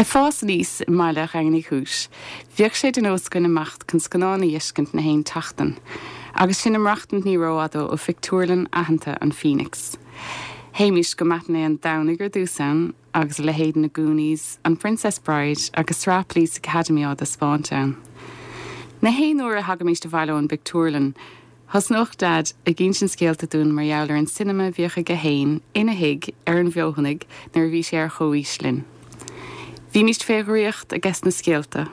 Ag fás aníos i mbaile Dhaingean Uí Chúis, bhíodh sé de nós againn imeacht chun scannán a dh'fheiscint na haon tseachtain, agus sinn ag maireachtaint ní rófhada ó phictiúrlann aitheanta an Phoenix. Théimist go matinée an Domhnaigh ar dtús ann, agus a leithéid na Goonies, an Princess Bride agus sraith Police Academy á dtaispeáint ann. Na haon uair a thagaimist abhaile ón bpictiúrlann, Thosnódh Daid ag insint scéalta dúinn mar gheall ar an cinema a bhíodh aige fhéin ina thigh ar an bhFeothanaigh nuair a bhí sé ar chomhaois linn. Bhímíst fé dhraíocht aiges na scéalta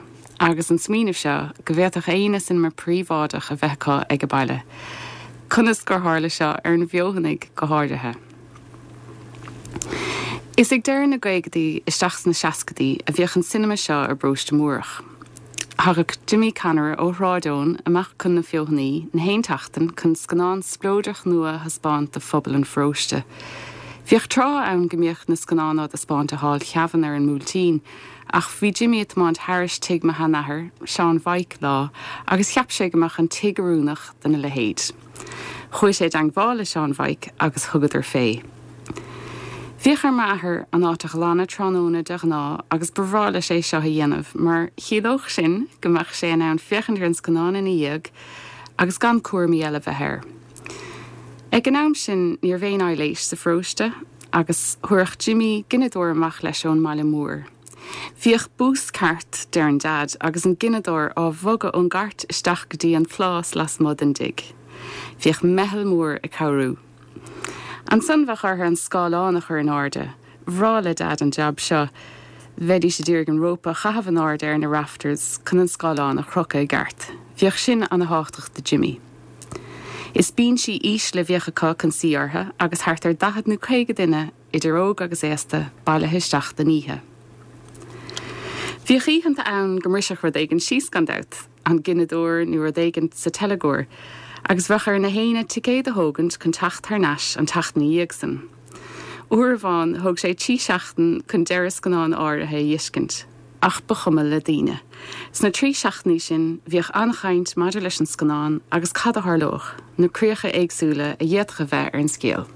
agus an smaoineamh seo go bhféadfadh éinne cinema príobháideach a bheith acu age baile. Conas gur tharla seo ar an bhFeothanaigh go háirithe? Is ag deireadh na gcaogadaí isteach sna seascadaí a bhíodh an cinema seo i bParóiste Múrach. Thagadh Jimmy Conaire ó Shráid Eoin amach chun na Feothanaí na haon tseachtain chun scannán spleodrach nua a thaispeáint do phobal an pharóiste. Bhíodh tráth ann go mbíodh na scannáin á dtaispeáint i Hall Sheamhain ar an mBuailtín ach bhí Jimmy ag tiomáint thairis tigh mo sheanathar, Seán Mhaidhc, lá agus cheap sé go mbeadh an tigh oiriúnach dona leithéid. Chuaigh sé i dteangmháil le Seán Mhaidhc agus thugadar fé. Bhíodh ar m'athair an áit a ghlanadh tráthnóna de ghnáth agus ba bhreá leis é seo a dhéanamh mar chiallódh sin go mbeadh sé in ann féachaint ar an scannán ina dhiaidh agus gan cúraimí eile bheith air. Ag an am sin ní raibh aon aibhléis sa pharóiste agus thabharfadh Jimmy gineadóir amach leis ón mbaile mór. Bhíodh bús ceart, deireann Daid, agus an gineadóir á bhogadh ón gcairt isteach go dtí an plás lasmuigh den dtigh. Bhíodh meitheal mór ag cabhrú. Ansan bheadh orthu an scáileán a chur in airde. Bhreá le Daid an jab seo. Bheidís a d'iarraidh an rópa a chaitheamh in airde ar na rafters chun an scáileán a chrocadh i gceart. Bhíodh sin ana thábhachtach do Jimmy. Is bínsí ísle a bhíodh acu chun suí orthu agus thart ar 40 nó 50 duine idir óg agus aosta, bailithe isteach don oíche. Bhíodh oícheanta ann go mbrisfeadh rud éigin síos, gan dabht, an gineadóir nó rud éigin sa teilgeoir, agus bheadh ar na héinne ticéad a thógaint chun teacht thar n-ais an tseachtain ina dhiaidh san. Uair amháin thóg sé trí seachtain chun deireadh scannáin áirithe a dh'fheiscint. Ach ba chuma le daoine. Sna trí seachtainí sin, bhíodh an-chaint maidir leis an scannán agus cad a tharlódh, na críocha éagsúla a d'fhéadfadh a bheith ar an scéal.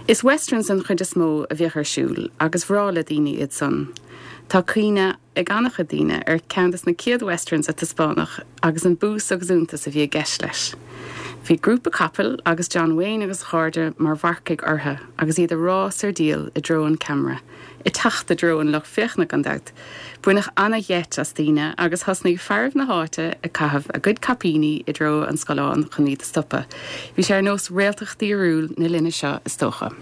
Is westerns den chuid is mó a bhíodh ar siúl agus bhreá le daoine iad san. Tá cuimhne ag an-chuid daoine ar cheann des na céad westerns a taispeánadh agus an bús agus iontas a bhí i gceist leis. Bhí grúpa capaill agus John Wayne agus a chairde mar mharcaigh orthu agus iad ag rás ar diail i dtreo an cheamara. Ag teacht i dtreo an lucht féachana, gan dabht. Baineadh ana-gheit as daoine agus thosnaigh fearaibh na háite ag caitheamh a gcuid caipíní i dtreo an scáileáin chun iad a stopadh. Bhí sé ar nós réaltacht fhíorúil na linne seo, is dócha.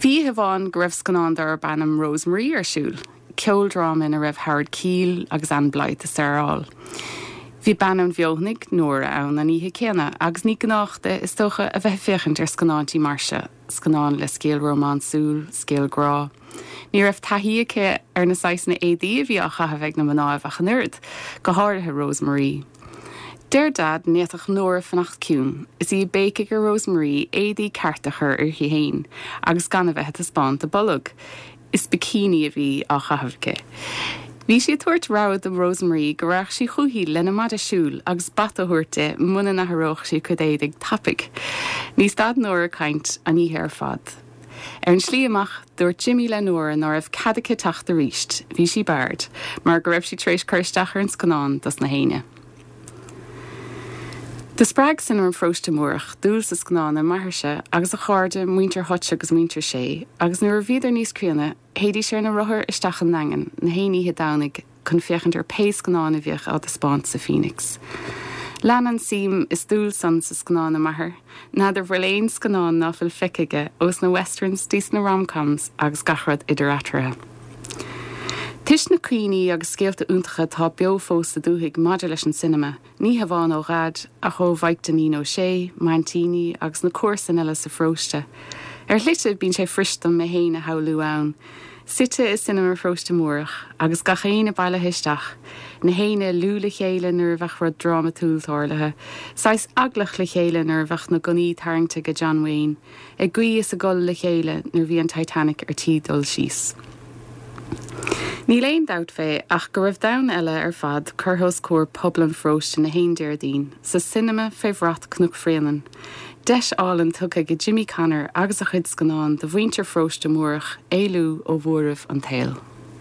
Bhí oíche amháin go raibh scannán darb ainm Rose Marie ar siúl, ceoldráma ina raibh Howard Keel agus Ann Blyth ag staráil. Bhí bean ón bhFeothanaigh, Nóra, ann an oíche céanna agus ní gnách di, is dócha, a bheith ag féachaint ar scannáintí mar seo. Scannán le scéal rómánsúil, scéal grá. Ní raibh taithí aici ar na saghsanna éadaí a bhí á chaitheamh ag na mnáibh ach an oiread, go háirithe Rose Marie. Deir Daid ní fhéadfadh Nóra fanacht ciúin is í ag béicigh ar Rose Marie éadaí cearta a chur uirthi fhéin agus gan a bheith ag taispeáint a bolg. Is bikini a bhí á chaitheamh aici. Bhí sí ag tabhairt rabhadh do Rose Marie go raghadh sí chúithi lena maide siúil agus bata a thabhairt di muna n-athródh sí a cuid éadaigh tapaidh. Ní stad Nóra ag caint an oíche ar fad. Ar an slí amach, dúirt Jimmy le Nóra ná raibh cead aici teacht aríst, bhí sí barred, mar go raibh sí tar éis cur isteach ar an scannán dos na héinne. Do spreag Cinema Pharóiste Múrach dúil sa scannán i m'athairse agus a chairde, muintir Hutch agus muintir Shea, agus nuair a bhíodar níos críonna, théidís ar na rothair isteach an nDaingean na haon oíche Domhnaigh chun féachaint ar pé scannán a bhíodh á dtaispeáint sa Phoenix. Lean an suim is dúil san sa scannán i m'athair. N'fheadar bhfuil aon scannán ná fuil feicthe aige ós na westerns dtí sna rom-coms agus gach rud idir eatarthu. Toisc na cuimhní agus scéalta iontacha atá beo fós sa dúthaigh maidir leis an cinema, ní hamháin ó Dhaid, ach ó Mhaidhc Dainín Ó Sé, m'aintíní agus na comharsain eile sa pharóiste. Ar shlite, bíonn sé fuirist dom mé fhéin a shamhlú ann, suite i Cinema Pharóiste Múrach, agus gach éinne bailithe isteach, na héinne ag liú le chéile nuair a bheadh rud drámatúil tarlaithe, saghas eaglach le chéile nuair a bheadh na gunnaí tarraingte ag John Wayne, Ag guí is ag gol le chéile nuair bhí an Titanic ar tí dul síos. Níl aon dabht fé ach go raibh domhan eile ar fad curtha os comhair pobal an pharóiste na haon Déardaoin, sa cinema fé bhrat Cnoc Bhréanainn. Deis álainn tugtha ag Jimmy Connor agus a chuid scannán do mhuintir Pharóiste Múrach éalú ó bhuaireamh an tsaoil.